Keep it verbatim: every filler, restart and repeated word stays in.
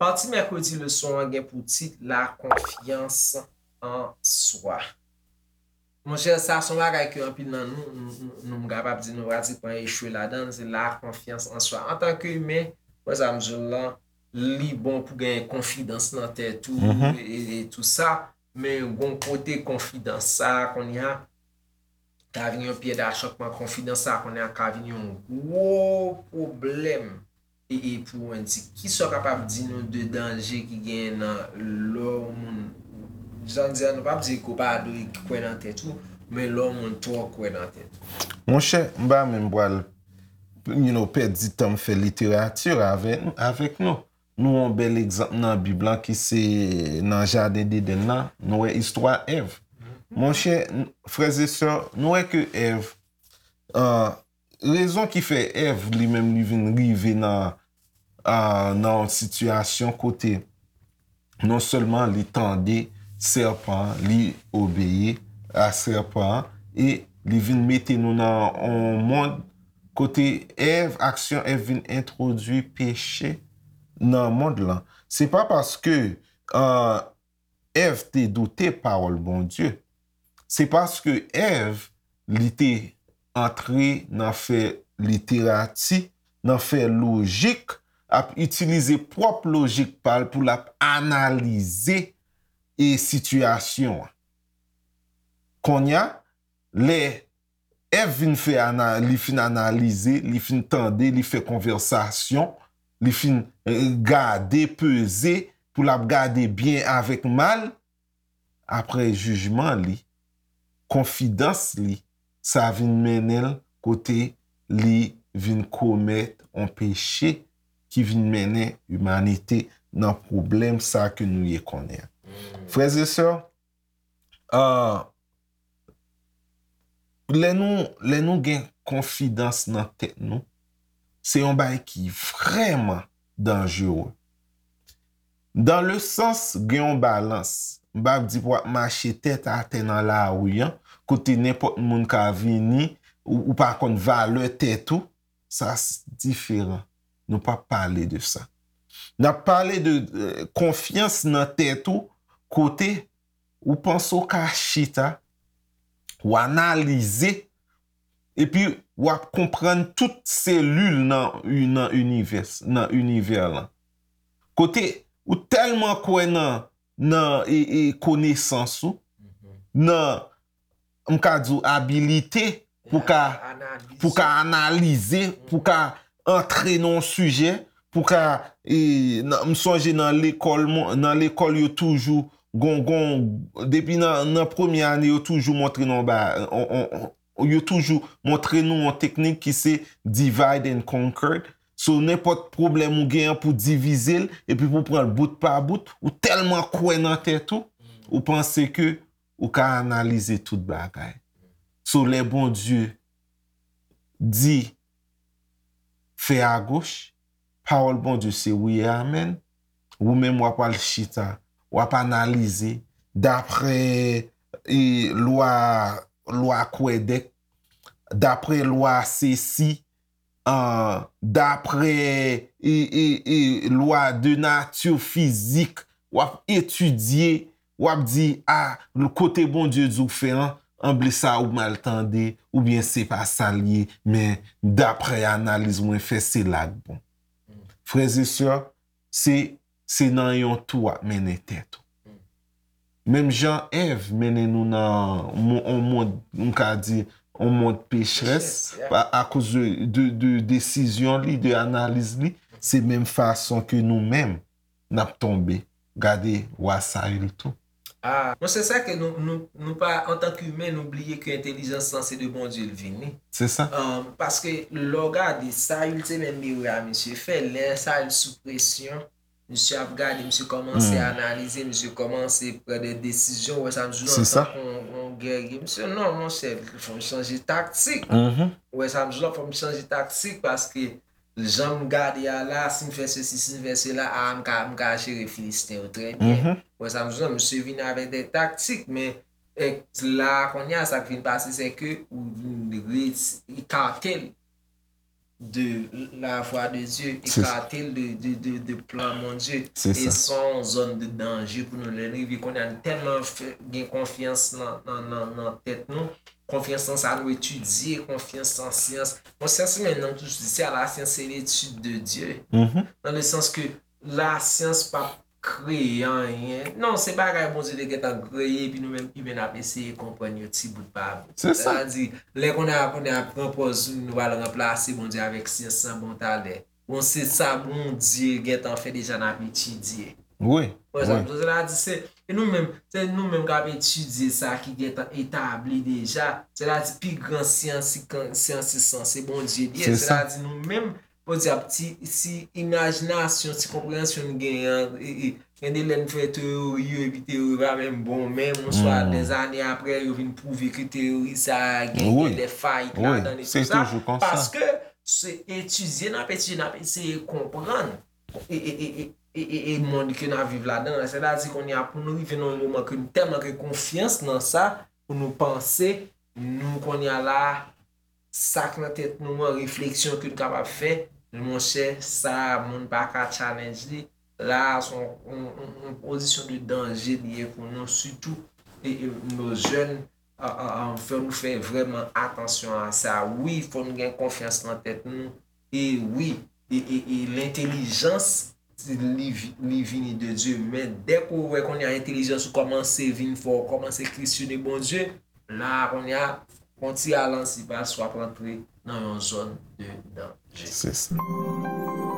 Pati mèkredi leson an gen pou tit La confiance en soi. Monchè, sa se yon bagay ke anpil nan nou, nou, nou, nou, m kapab di nou pratikman echwe ladan l, se la confiance en soi. Antanke imen, wè sa m di w lan, li bon pou gen konfidans nan tèt ou e, e, e tou sa, men gon kote konfidans sa a kounye a ka vin yon pyè dachòkman, konfidans sa a kounye a ka vin yon gwo pwoblèm. E, e pou w di, kisa w kapab di nou de danje ki genyen nan lè yon moun, jan di a, nou p ap di ke w pa dwe kwè nan tèt ou, men lè yon moun twò kwè nan tèt ou? Monchè, m pa menm pral, you know, pèdi tan m fè literati avè, avèk nou. Nou yon bèl egzanp nan Bib lan ki se nan jaden Dedenn nan, nou wè istwa Èv. Monchè, n- frè e sè, nou wè ke Èv, an, rezon ki fè Èv li menm li vin rive nan, a, nan yon sitiyasyon kote non sèlman li tande sèpan an, li obeyi a sèpan an, e li vin mete nou nan yon mond kote Èv, aksyon Èv vin entwodui peche nan mond lan. Se pa paske, a, Èv te doute pawòl Bondye. Se paske Èv, li te antre nan fè literati, nan fè lojik, ap itilize pwòp lojik pa l pou l ap analize e sitiyasyon an. Kounye a, lè Èv vin fè ana, li fin analize, li fin tande, li fè konvèsasyon, li fin, eh, gade, peze, pou l ap gade byen avèk mal, apre jijman li, konfidans li, sa vin mennen l kote li vin komèt yon peche ki vin mennen imanite nan pwoblèm sa ke nou ye konnen an. Frè e sè, ah, lè nou, lè nou gen konfidans nan tèt nou, se yon bagay ki vrèman danjere. Dans le sens, gen yon balans. M p ap di pou w ap mache tèt atè nan lari an, kote nenpòt moun ka vini, ou, ou pa konn valè tèt ou, sa s- diferan. Nou p ap pale de sa. N ap pale de, eh, konfyans nan tèt ou, kote ou panse w ka chita, w analize, epi w ap konprann tout selil nan, nan inivès, nan inivè lan. Kote ou tèlman kwè nan, nan, e, e, konesans ou, nan, m ka di w, abilite pou ka, pou ka analize, pou ka antre nan yon sijè, pou ka, e, nan, m sonje nan lekòl, mwen, nan lekòl yo toujou, gon, gon, depi nan, nan premye ane, yo toujou montre nou ba, on, on, on, yo toujou montre nou yon teknik ki se divide and conquer. So, nenpòt pwoblèm ou gen an pou divize l, epi pou pran l bout pa bout, ou tèlman kwè nan tèt ou, ou panse ke ou ka analize tout bagay. So, lè Bondye di, fè agoch, pawòl Bondye se wi e amèn. Ou menm w ap al chita, w ap analize, daprè, e, lwa, lwa Kwadèk, daprè lwa sesi, an, daprè, e, e, e, lwa de nati fizik, w ap etidye, w ap di, a, kote Bondye di w fè an, anble sa ou mal tande, oubyen se pa sa l ye, men daprè analiz mwen fè, se la k bon. Frè e sè, se, se nan yon tou w ap mennen tèt ou. Menm jan Èv mennen nou nan mon- on mond, m ka di, on mond pechrès, pa- akoz de, de, de desizyon li, de analiz li, se menm fason ke nou menm, n ap tonbe. Gade wa Sayil tou. Ah, monchè, sa ke nou, nou, nou pa, antanke imen, nou bliye ke entèlijans lan se de Bondye l vini. Se sa. Ahn, paske lè w gade, Sayil se menm erè a misye fè. Lè Sayil sou presyon, misye ap gade, misye kòmanse analize, misye kòmanse pran de desizyon. Ou wè sa m di w lan, se sa, antanke yon, yon gèrye. Misye, non, monchè, fò m chanje taktik. Ou wè sa m di w lan, fò m chanje taktik paske jan m gade a la, si m fè sesi, si m fè sela, a, m ka, m ka jere Filisten yo trè byen. Ou wè sa m di w lan, misye vin avèk de taktik, men Èk la, kounye a, sa k vin pase, se ke ou vin reti-, ekate l de la vwa de Dye, Se- ekate l de, de, de, de plan Bondye. Se E sa. se yon zòn de danje pou nou lè n rive kounye a, nou tèlman fè, gen konfyans nan, nan, nan, nan tèt nou, konfyans nan sa nou etidye, konfyans nan syans. Bon, syans menm, nan tou, se a la science, c'est l'étude de Dieu. Mhm. Nan le sans ke la syans p ap kreye anyen. Non, se bagay Bondye te gentan kreye, epi nou menm imen n ap eseye konprann yo ti bout pa bout. Se sa. Sa di, lè kounye a, kounye a pran pòz nou pral ranplase Bondye avèk syans lan bon talè. Bon, se sa Bondye gentan fè deja n ap etidye. Wi. Wè sa Wi. m sè la di se, e nou menm, se nou menm k ap etidye sa ki gentan etabli deja. Sè la di pi gran syans, syans, syans, se Bondye li ye. Se Sè sa. La di nou menm, Bondye ap ti, si imajinasyon, si konpreyansyon n genyen an, e, e, gen de lè n fè teyori yo, epi teyori pa menm bon menm, oswa Hmm. dèzane apre, yo vin pwouve ke teyori sa a gen, Wi. Gen de fayit Wi. Ladan e Se tou sa. Toujou konsa. Paske se etidye n ap etidye, n ap eseye konprann. E, e, e, e, e, e, e mond ke n ap viv ladan an. Sètadi kounye a, pou nou rive nan yon moman ke nou tèlman gen konfyans nan sa, pou nou panse, nou kounye a la, sa k nan tèt nou an, refleksyon ke nou kapab fè, monchè, sa, moun pa ka challenge li. La, se yon, yon, yon, yon pozisyon de danje li ye pou nou, sitou, e, e, nos jeunes, a, a, a, fò nou fè vrèman atansyon a sa. Wi, fò nou gen konfyans nan tèt nou. E wi, e, e, e lentèlijans, li, vi- li vini de Dye. Men dèk ou wè kounye a entèlijans ou kòmanse vin fò, ou kòmanse kesyone Bondye, la kounye a, yon ti ralanti pas, w ap rantre nan yon zòn de danje. Se sa.